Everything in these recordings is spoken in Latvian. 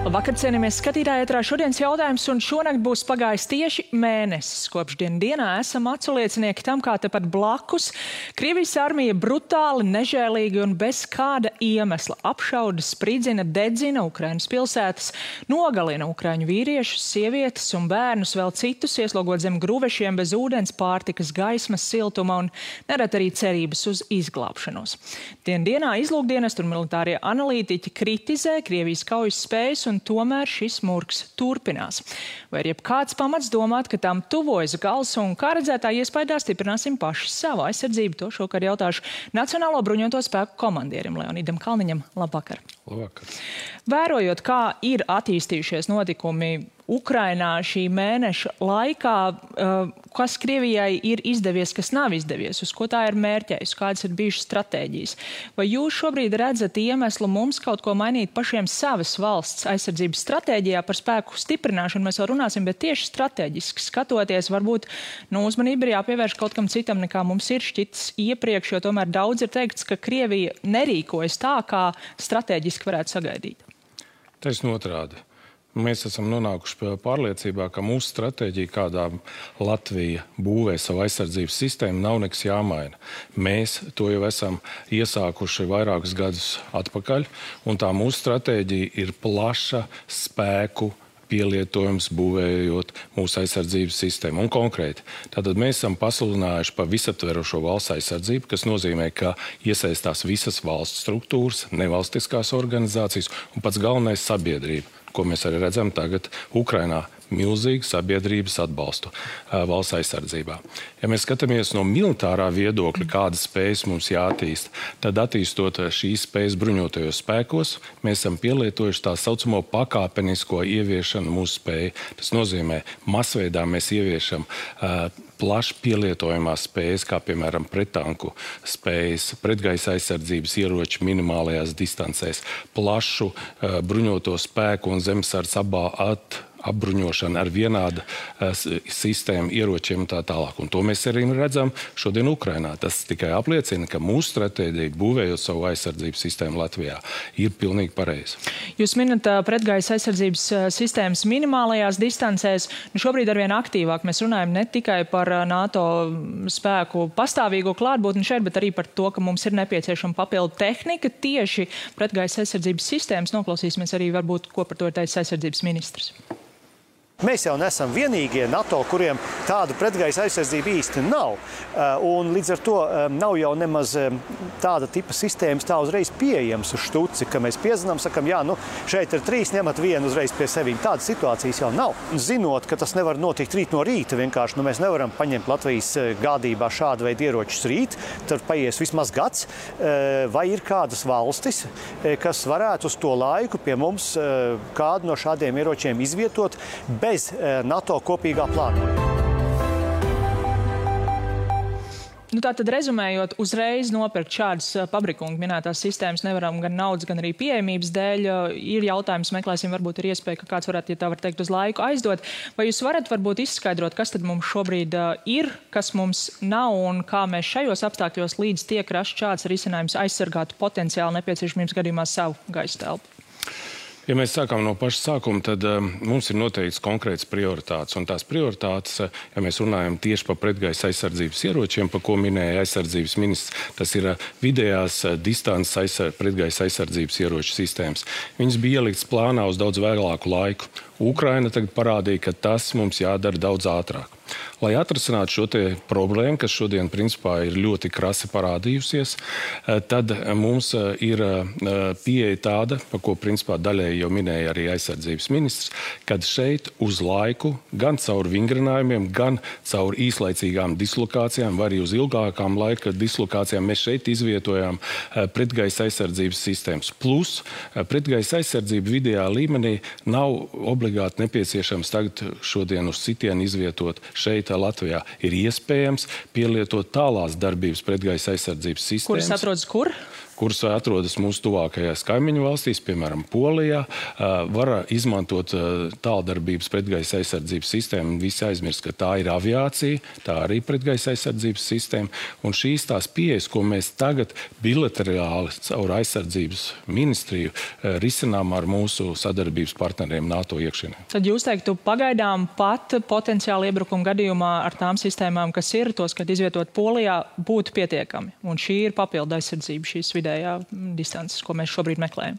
Labvakar, cienījamies skatītāji, ētrā šodienas jautājums, un šonakt būs pagājis tieši mēnesis. Kopš dienā esam aculiecinieki tam, kā tepat blakus Krievijas armija brutāli, nežēlīgi un bez kāda iemesla apšauda, spridzina, dedzina Ukrainas pilsētas, nogalina ukraiņu vīriešus, sievietes un bērnus, vēl citus ieslogot zem gruvešiem bez ūdens, pārtikas, gaismas, siltuma un nerad arī cerības uz izglābšanos. Dienā izlūkdienestu un militārie analītiķi kritizē Krievijas kaujas spējas, un tomēr šis murgs turpinās. Vai ir jebkāds pamats domāt, ka tam tuvojas gals, un kā redzētā iespējā stiprināsim paši savu aizsardzību? To šokar jautāšu Nacionālo bruņoto spēku komandierim Leonīdam Kalniņam. Labvakar! Labvakar! Vērojot, kā ir attīstījušies notikumi Ukrainā šī mēneša laikā, kas Krievijai ir izdevies, kas nav izdevies, uz ko tā ir mērķējusi, kādas ir bijušas stratēģijas. Vai jūs šobrīd redzat iemeslu mums kaut ko mainīt pašiem savas valsts aizsardzības stratēģijā? Par spēku stiprināšanu mēs vēl runāsim, bet tieši strateģiski skatoties, varbūt uzmanība ir jāpievērš kaut kam citam, nekā mums ir šķitis iepriekš, jo tomēr daudz ir teikts, ka Krievija nerīkojas tā, kā strateģiski varētu sagaidīt. Taisn otrādi. Mēs esam nonākuši pie pārliecībā, ka mūsu stratēģija, kādā Latvija būvē savu aizsardzības sistēmu, nav nekas jāmaina. Mēs to jau esam iesākuši vairākus gadus atpakaļ, un tā mūsu stratēģija ir plaša spēku pielietojums, būvējot mūsu aizsardzības sistēmu. Un konkrēti, tātad mēs esam pasludinājuši par visaptverošo valsts aizsardzību, kas nozīmē, ka iesaistās visas valsts struktūras, nevalstiskās organizācijas un pats galvenais sabiedrība, ko mēs arī redzam tagad Ukrainā, milzīgu sabiedrības atbalstu valsts aizsardzībā. Ja mēs skatāmies no militārā viedokļa, kādas spējas mums jāattīst, tad attīstot šīs spējas bruņotajos spēkos, mēs esam pielietojuši tā saucamo pakāpenisko ieviešanu mūsu spēju. Tas nozīmē, masveidā mēs ieviešam plaši pielietojamās spējas, kā piemēram prettanku spējas, pretgaisa aizsardzības ieroči minimālajās distancēs, plašu bruņoto spēku un zemesardze apbruņošana ar vienādu sistēmu, ieročiem un tā tālāk. Un to mēs arī redzam šodien Ukrainā. Tas tikai apliecina, ka mūsu stratēģija, būvējot savu aizsardzības sistēmu Latvijā, ir pilnīgi pareiza. Jūs minat pretgaisa aizsardzības sistēmas minimālajās distancēs. Šobrīd arvien aktīvāk mēs runājam ne tikai par NATO spēku pastāvīgo klātbūtni šeit, bet arī par to, ka mums ir nepieciešama papildu tehnika tieši pretgaisa aizsardzības sistēmas. Noklausīsimies arī varbūt, ko par to ir teicis aizsardzības ministrs. Mēs jau nesam vienīgie NATO, kuriem tāda pretgaisa aizsardzība īsti nav. Un līdz ar to nav jau nemaz tāda tipa sistēmas tā uzreiz pieejams uz štuci, ka mēs piezinām, sakam, jā, šeit ir 3, ņemat vienu uzreiz pie sevīm. Tādas situācijas jau nav. Zinot, ka tas nevar notikt rīt no rīta, vienkārši mēs nevaram paņemt Latvijas gādībā šādu veidu ieročus rīt, tad paies vismaz gads. Vai ir kādas valstis, kas varētu uz to laiku pie mums kādu no šādiem ieročiem izvietot bez NATO kopīgā plānojuma? Tātad, rezumējot, uzreiz nopirkt šādas pabrikungu minētās sistēmas nevaram gan naudas, gan arī pieejamības dēļ. Ir jautājums, meklēsim, varbūt ir iespēja, ka kāds varētu, ja tā var teikt, uz laiku aizdot. Vai jūs varat varbūt izskaidrot, kas tad mums šobrīd ir, kas mums nav un kā mēs šajos apstākļos līdz tiek rasts šāds risinājums aizsargātu potenciāli nepieciešamības gadījumā savu gaisa telpu? Ja mēs sākam no paša sākuma, tad mums ir noteikts konkrēts prioritātes. Un tās prioritātes, ja mēs runājam tieši par pretgaisa aizsardzības ieročiem, par ko minēja aizsardzības ministrs, tas ir vidējās distances pretgaisa aizsardzības ieroču sistēmas. Viņas bija ieliktas plānā uz daudz vēlāku laiku. Ukraina tagad parādīja, ka tas mums jādara daudz ātrāk. Lai atrisinātu šo te problēmu, kas šodien principā ir ļoti krasi parādījusies, tad mums ir pieeja tāda, par ko principā daļēji jau minēja arī aizsardzības ministrs, kad šeit uz laiku, gan caur vingrinājumiem, gan caur īslaicīgām dislokācijām, vai arī uz ilgākām laika dislokācijām, mēs šeit izvietojām pretgaisa aizsardzības sistēmas. Plus, pretgaisa aizsardzība vidējā līmenī nav obligāti nepieciešams tagad šodien uz sitienu izvietot šeit Latvijā. Ir iespējams pielietot tālās darbības pretgaisa aizsardzības sistēmas. Kuras atrodas kur? kuras atrodas mūsu tuvākajās kaimiņu valstīs, piemēram, Polijā, var izmantot tāldarbības pretgaisa aizsardzības sistēmu. Visi aizmirst, ka tā ir aviācija, tā arī pretgaisa aizsardzības sistēma. Un šīs tās pieejas, ko mēs tagad bilaterāli caur aizsardzības ministriju risinām ar mūsu sadarbības partneriem NATO iekšienē. Tad jūs teiktu, pagaidām pat potenciāli iebrukuma gadījumā ar tām sistēmām, kas ir, tos, kad izvietot Polijā, būtu pietiekami. Un šī ir papildu aizsardzība, šīs vidējā distances, ko mēs šobrīd meklējam.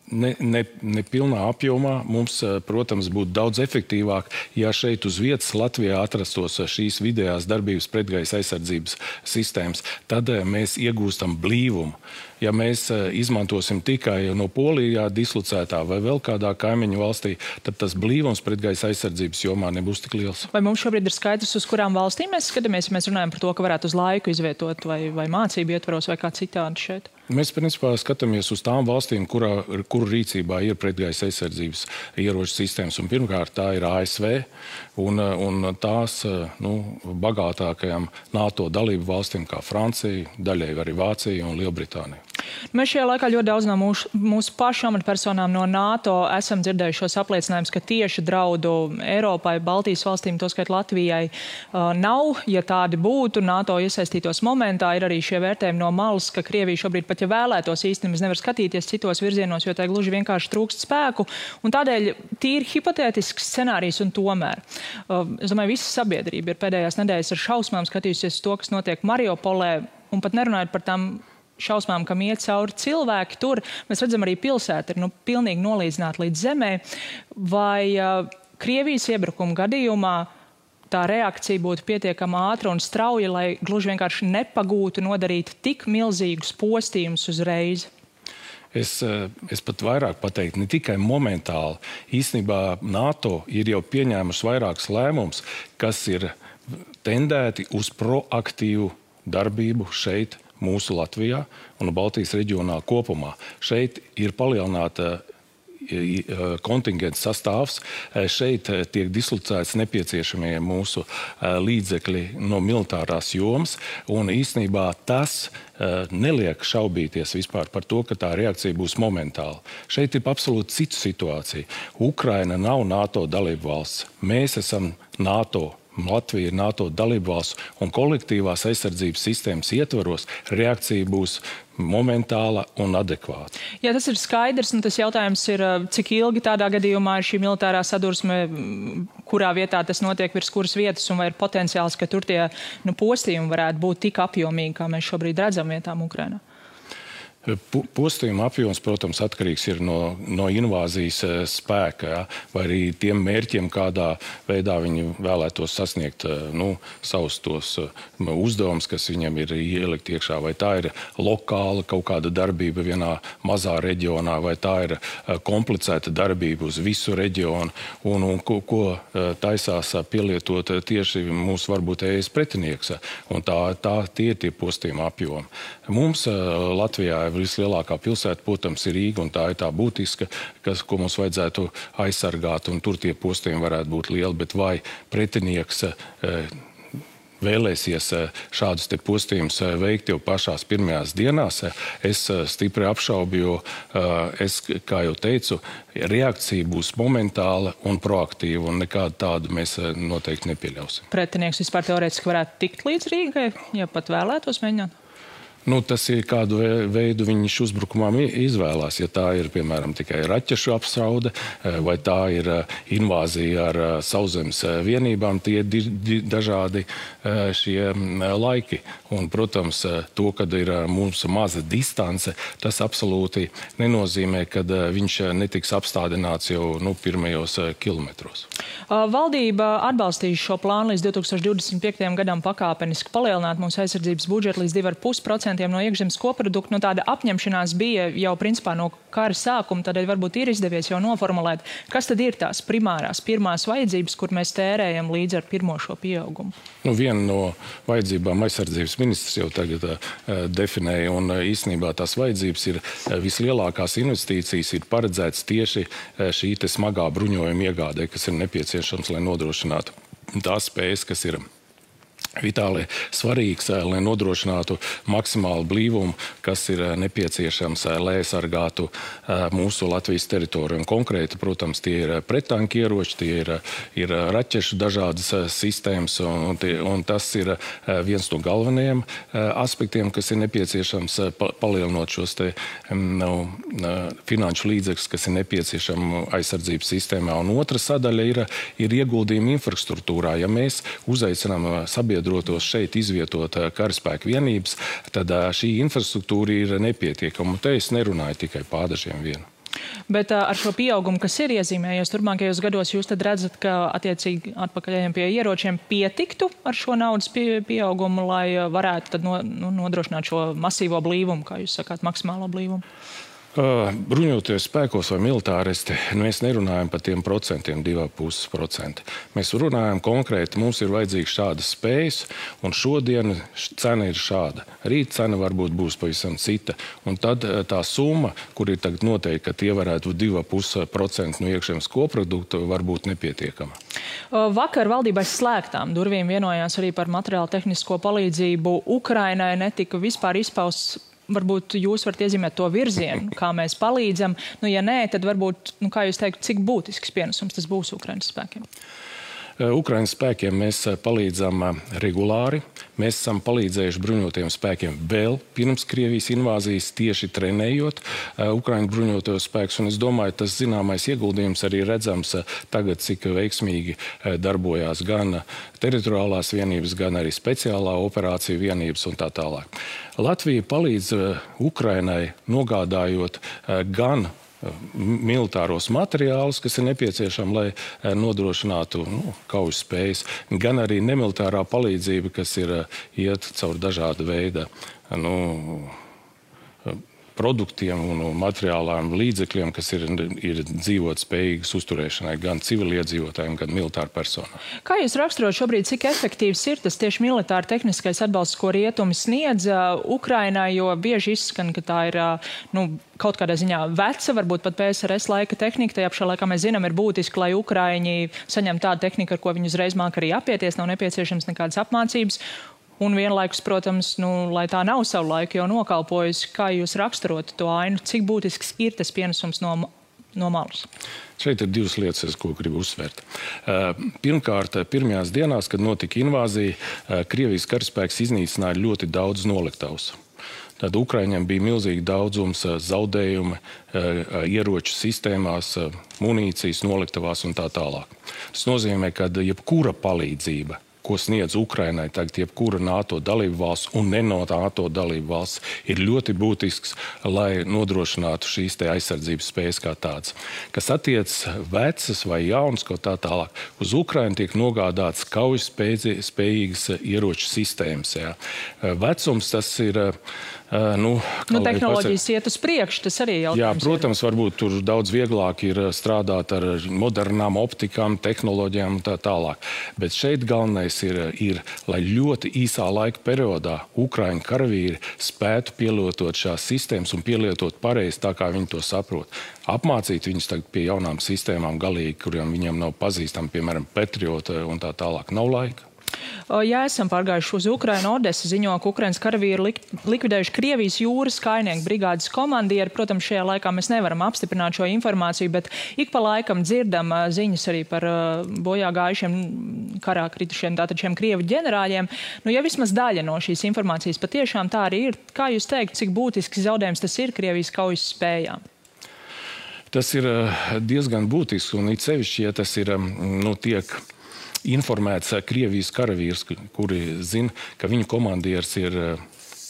Ne pilnā apjomā mums, protams, būtu daudz efektīvāk, ja šeit uz vietas Latvijā atrastos šīs vidējās darbības pretgaisa aizsardzības sistēmas. Tad mēs iegūstam blīvumu. Ja mēs izmantosim tikai no Polijā dislocētā vai vēl kādā kaimiņu valstī, tad tas blīvums pretgaisa aizsardzības jomā nebūs tik liels. Vai mums šobrīd ir skaidrs, uz kurām valstīm mēs skatāmies, ja mēs runājam par to, ka varētu uz laiku izvietot vai mācību ietvaros vai kā citādi šeit? Mēs principā skatāmies uz tām valstīm, kuru rīcībā ir pretgaisa aizsardzības ieroču sistēmas. Un pirmkārt, tā ir ASV un tās bagātākajām NATO dalību valstīm kā Francija, daļai arī Vācija un Lielbritānija. Mēs šajā laikā ļoti daudz no mūsu pašu amatpersonām no NATO esam dzirdējuši šos apliecinājumus, ka tieši draudu Eiropai, Baltijas valstīm, toskait Latvijai, nav. Ja tādi būtu, NATO iesaistītos momentā, ir arī šie vērtējumi no malas, ka Krievija šobrīd pat, ja vēlētos īstenībā, nevar skatīties citos virzienos, jo tai gluži vienkārši trūkst spēku. Un tādēļ tīri hipotētisks scenārijs un tomēr. Es domāju, visa sabiedrība ir pēdējās nedēļas ar šausmām skatījusies to, kas notiek Mariupolē, un pat nerunājot par tām šausmām, kam iet cauri cilvēki tur. Mēs redzam, arī pilsēta ir pilnīgi nolīdzināta līdz zemē. Vai Krievijas iebrukuma gadījumā tā reakcija būtu pietiekama ātra un strauja, lai gluži vienkārši nepagūtu nodarīt tik milzīgus postījumus uzreiz? Es pat vairāk pateiktu, ne tikai momentāli. Īstenībā NATO ir jau pieņēmusi vairākus lēmumus, kas ir tendēti uz proaktīvu darbību šeit, mūsu Latvijā un Baltijas reģionā kopumā. Šeit ir palielināta kontingents sastāvs. Šeit tiek dislocēts nepieciešamie mūsu līdzekļi no militārās jomas, un īstenībā tas neliek šaubīties vispār par to, ka tā reakcija būs momentāla. Šeit ir absolūti cita situācija. Ukraina nav NATO dalību valsts. Mēs esam NATO. Latvija ir NATO dalībvalsts, un kolektīvās aizsardzības sistēmas ietvaros reakcija būs momentāla un adekvāta. Jā, tas ir skaidrs, un tas jautājums ir, cik ilgi tādā gadījumā ir šī militārā sadursme, kurā vietā tas notiek, virs kuras vietas, un vai ir potenciāls, ka tur tie postījumi varētu būt tik apjomīgi, kā mēs šobrīd redzam vietām Ukrainā? Postījuma apjoms, protams, atkarīgs ir no invāzijas spēka, ja, vai arī tiem mērķiem, kādā veidā viņi vēlētos sasniegt savus tos uzdevumus, kas viņam ir ielikt iekšā. Vai tā ir lokāla kaut kāda darbība vienā mazā reģionā, vai tā ir komplicēta darbība uz visu reģionu, un ko taisās pielietot tieši mūsu varbūt ES pretinieks. Un tie ir tie postījuma apjomi. Mums Latvijā vislielākā pilsēta, protams, ir Rīga, un tā ir tā būtiska, ko mums vajadzētu aizsargāt, un tur tie postījumi varētu būt lieli, bet vai pretinieks vēlēsies šādus te postījumus veikt jau pašās pirmajās dienās, es stipri apšaubu, jo es, kā jau teicu, reakcija būs momentāla un proaktīva, un nekādu tādu mēs noteikti nepieļausim. Pretinieks vispār teorētiski varētu tikt līdz Rīgai, ja pat vēlētos mēģināt? Tas ir kādu veidu viņš uzbrukumām izvēlās. Ja tā ir, piemēram, tikai raķešu apstraude, vai tā ir invāzija ar sauszemes vienībām, tie ir dažādi šie laiki. Un, protams, to, kad ir mums maza distance, tas absolūti nenozīmē, ka viņš netiks apstādināts jau pirmajos kilometros. Valdība atbalstīs šo plānu līdz 2025. gadam pakāpeniski palielināt mūsu aizsardzības budžetu līdz 2,5% no iekšzemes koprodukta. Tāda apņemšanās bija jau principā no kara sākuma, tādēļ varbūt ir izdevies jau noformulēt, kas tad ir tās pirmās vajadzības, kur mēs tērējam līdz ar pirmo šo pieaugumu. Viena no vajadzībām aizsardzības ministrs jau tagad definēja, un īstenībā tās vajadzības ir vislielākās investīcijas ir paredzētas tieši šī te smagā bruņojuma iegādē, kas ir nepieciešams, lai nodrošinātu tās spējas, kas ir vitāli svarīgs, lai nodrošinātu maksimālu blīvumu, kas ir nepieciešams, lai aizsargātu mūsu Latvijas teritoriju. Un konkrēti, protams, tie ir prettanku ieroči, tie ir raķešu dažādas sistēmas, un tas ir viens no galvenajiem aspektiem, kas ir nepieciešams palielinot šos te finanšu līdzekļus, kas ir nepieciešami aizsardzības sistēmā. Un otra sadaļa ir ieguldījumi infrastruktūrā. Ja mēs uzaicinām sabiedrotos šeit izvietot karaspēku vienības, tad šī infrastruktūra ir nepietiekama. Un te es nerunāju tikai pādažiem vienu. Bet ar šo pieaugumu, kas ir iezīmējies turpmākajos gados, jūs tad redzat, ka attiecīgi atpakaļējiem pie ieročiem pietiktu ar šo naudas pieaugumu, lai varētu tad nodrošināt šo masīvo blīvumu, kā jūs sakāt, maksimālo blīvumu? Bruņoties spēkos vai militāristi, mēs nerunājam par tiem procentiem, 2,5%. Mēs runājam konkrēti, mums ir vajadzīgs šādas spējas, un šodien cena ir šāda. Rīt cena varbūt būs pavisam cita. Un tad tā summa, kur ir tagad noteikti, ka tie varētu 2,5% no iekšzemes koprodukta, var būt nepietiekama. Vakar valdībai slēgtām durvīm vienojās arī par materiālu tehnisko palīdzību Ukrainai, netika vispār izpausts. Varbūt jūs varat iezīmēt to virzienu, kā mēs palīdzam. Ja nē, tad varbūt, kā jūs teikt, cik būtisks pienesums tas būs Ukrainas spēkiem? Ukrainas spēkiem mēs palīdzam regulāri. Mēs esam palīdzējuši bruņotiem spēkiem vēl pirms Krievijas invāzijas, tieši trenējot Ukraiņu bruņotos spēkus. Un es domāju, tas zināmais ieguldījums arī redzams tagad, cik veiksmīgi darbojās gan teritoriālās vienības, gan arī speciālā operācija vienības un tā tālāk. Latvija palīdz Ukrainai nogādājot gan militāros materiālus, kas ir nepieciešami, lai nodrošinātu kaujas spējas, gan arī nemilitārā palīdzība, kas ir iet caur dažāda veida produktiem un materiālām līdzekļiem, kas ir dzīvot spējīgas uzturēšanai gan civiliedzīvotājiem, gan militāru personām. Kā jūs raksturot šobrīd, cik efektīvs ir tas tieši militāri tehniskais atbalsts, ko rietumi sniedz Ukrainai, jo bieži izskan, ka tā ir kaut kādā ziņā veca, varbūt pat PSRS laika tehnika. Tajā pašā laikā mēs zinām, ir būtiski, lai Ukraiņi saņem tādu tehniku, ar ko viņi uzreiz māk arī apieties, nav nepieciešams nekādas apmācības. Un vienlaikus, protams, lai tā nav savu laiku jau nokalpojusi, kā jūs raksturot to ainu, cik būtisks ir tas pienesums no malas? Šeit ir divas lietas, ko gribu uzsvērt. Pirmkārt, pirmajās dienās, kad notika invāzija, Krievijas karaspēks iznīcināja ļoti daudz noliktavas. Tad Ukraiņiem bija milzīgi daudzums zaudējumi ieroču sistēmās, munīcijas noliktavās un tā tālāk. Tas nozīmē, ka jebkura palīdzība, ko sniedz Ukrainai tagad jebkura NATO dalību valsts un ne no NATO dalību valsts, ir ļoti būtisks, lai nodrošinātu šīs te aizsardzības spējas kā tādas. Kas attiec vecas vai jaunas, ko tā tālāk, uz Ukrainu tiek nogādāts kaujas spējīgas ieroču sistēmas. Jā. Vecums tas ir tehnoloģijas iet uz priekšu, tas arī jautājums. Jā, protams, varbūt tur daudz vieglāk ir strādāt ar modernām optikām, tehnoloģijām un tā tālāk. Bet šeit galvenais ir, lai ļoti īsā laika periodā Ukraiņu karavīri spētu pielietot šās sistēmas un pielietot pareizi tā, kā viņi to saprot. Apmācīt viņus tagad pie jaunām sistēmām galīgi, kuriem viņiem nav pazīstami, piemēram, Patriot un tā tālāk. Nav laika. Ja esam pārgājuši uz Ukrainu, Odesa ziņo, ka Ukrainas karavīri likvidējuši Krievijas jūras kājnieku brigādes komandieri. Protams, šajā laikā mēs nevaram apstiprināt šo informāciju, bet ik pa laikam dzirdam ziņas arī par bojā gājušiem karā kritušiem tātad šiem Krievu ģenerāļiem. Ja vismaz daļa no šīs informācijas patiešām tā arī ir, kā jūs teikt, cik būtisks zaudējums tas ir Krievijas kaujas spējām? Tas ir diezgan būtisks, un it sevišķi, ja tas ir, tiek informēts Krievijas karavīrs, kuri zina, ka viņu komandieris ir,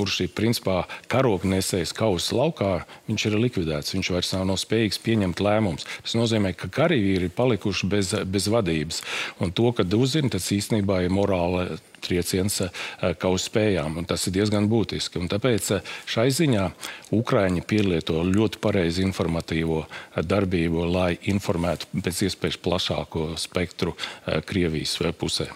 kurš ir principā karognesējs kaujas laukā, viņš ir likvidēts, viņš vairs nav spējīgs pieņemt lēmumus. Tas nozīmē, ka karavīri ir palikuši bez vadības. Un to, kad uzzina, tas īstenībā ir morāla trieciens kaujas spējām, un tas ir diezgan būtiski. Un tāpēc šai ziņā Ukraiņi pielieto ļoti pareizi informatīvo darbību, lai informētu pēc iespējas plašāko spektru Krievijas pusē.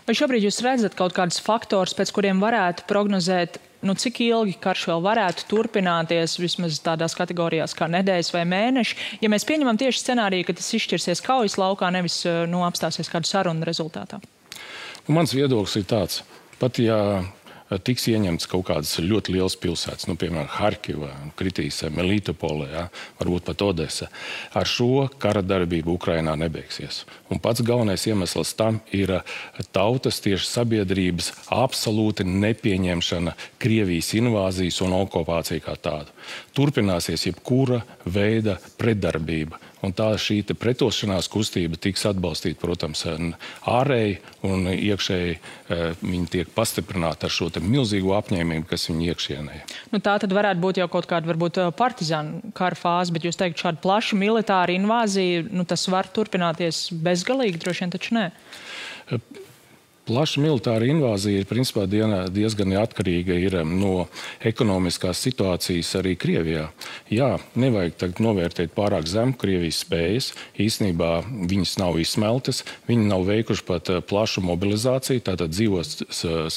Vai šobrīd jūs redzat kaut kādus faktors, pēc kuriem varētu prognozēt, cik ilgi karš vēl varētu turpināties, vismaz tādās kategorijās kā nedēļas vai mēneši, ja mēs pieņemam tieši scenāriju, ka tas izšķirsies kaujas laukā, nevis apstāsies kādu sarunu rezultātā? Mans viedoklis ir tāds. Pat ja tiks ieņemts kaut kādas ļoti lielas pilsētas, piemēram, Harkiva, kritīs Melitopole, varbūt pat Odesa. Ar šo kara darbību Ukrainā nebeigsies. Un pats galvenais iemesls tam ir tautas tieši sabiedrības absolūti nepieņemšana Krievijas invāzijas un okupācija kā tādu. Turpināsies jebkura veida pretdarbība. Un tā šī pretošanās kustība tiks atbalstīta, protams, ārēji un iekšēji viņi tiek pastiprināti ar šo milzīgo apņēmību, kas viņu iekšienē. Tā tad varētu būt jau kaut kāda varbūt partizānu kara fāze, bet jūs teikt, šāda plaša militāra invāzija, tas var turpināties bezgalīgi, droši vien taču nē. Plaša militāra invāzija ir principā diezgan atkarīga no ekonomiskās situācijas arī Krievijā. Jā, nevajag tagad novērtēt pārāk zemu Krievijas spējas. Īstenībā viņas nav izsmeltas, viņi nav veikuši pat plašu mobilizāciju, tātad dzīvos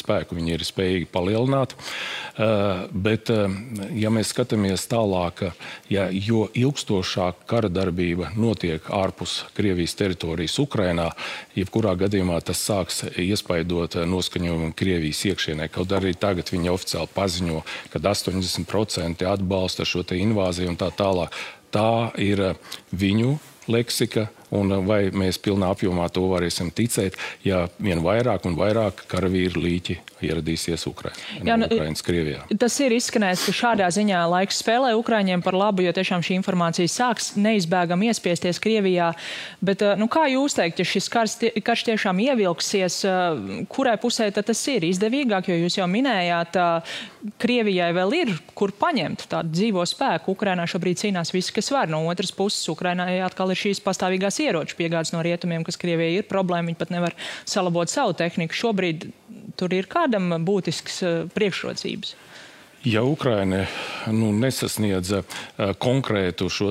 spēku viņi ir spējīgi palielināt. Bet, ja mēs skatāmies tālāk, jo ilgstošāk kara darbība notiek ārpus Krievijas teritorijas Ukrainā, jebkurā gadījumā tas sāks iespaidot noskaņojumu Krievijas iekšienē. Kaut arī tagad viņi oficiāli paziņo, ka 80% atbalsta šo invāziju un tā tālāk. Tā ir viņu leksika, un vai mēs pilnā apjomā to varēsim ticēt, ja vien vairāk un vairāk karavīru līķi ieradīsies Ukrainas Krievijā. Tas ir izskanējis, ka šādā ziņā laiks spēlē Ukraiņiem par labu, jo tiešām šī informācija sāks neizbēgami iespiesties Krievijā. Bet, kā jūs teikt, ja šis karš tiešām ievilksies, kurai pusē tad tas ir izdevīgāk, jo jūs jau minējāt, Krievijai vēl ir, kur paņemt tādu dzīvo spēku. Ukrainā šobrīd cīnās visi, kas var. No otras puses, Ukrainai atkal ir šīs pastāvīgās ieroču piegādes no rietumiem, kas Krievijai ir problēma, viņi pat nevar salabot savu tehniku. Šobrīd tur ir kādam būtisks priekšrocības? Ja Ukraina nesasniedz konkrētu šo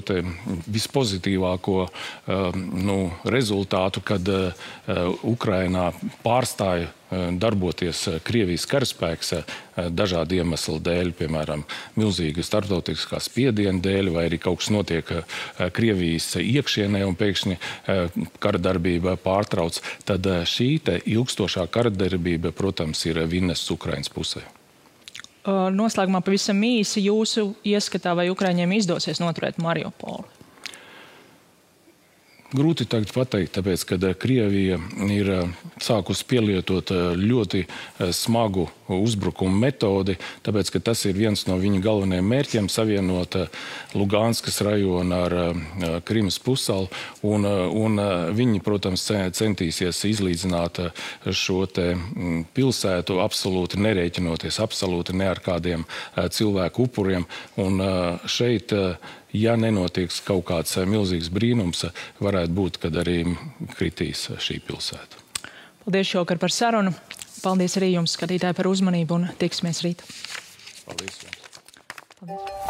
vispozitīvāko rezultātu, kad Ukrainā pārstāja darboties Krievijas karaspēks dažādu iemeslu dēļ, piemēram, milzīga starptautiskā spiediena dēļ, vai arī kaut kas notiek Krievijas iekšienē un pēkšņi kara darbība pārtrauc, tad šī ilgstošā kara darbība, protams, ir vinests Ukrainas pusē. Noslēgumā pavisam īsi jūsu ieskatā, vai Ukraiņiem izdosies noturēt Mariupoli? Grūti tagad pateikt, tāpēc, ka Krievija ir sākusi pielietot ļoti smagu uzbrukumu metodi, tāpēc, ka tas ir viens no viņa galvenajiem mērķiem savienot Luganskas rajonu ar Krimas pussalu, un viņi, protams, centīsies izlīdzināt šo pilsētu, absolūti nerēķinoties, absolūti ne ar kādiem cilvēku upuriem, un šeit ja nenotiek kaut kāds milzīgs brīnums, varētu būt, kad arī kritīs šī pilsēta. Paldies šovakar par sarunu. Paldies arī jums, skatītāji, par uzmanību un tiksimies rīt. Paldies jums. Paldies.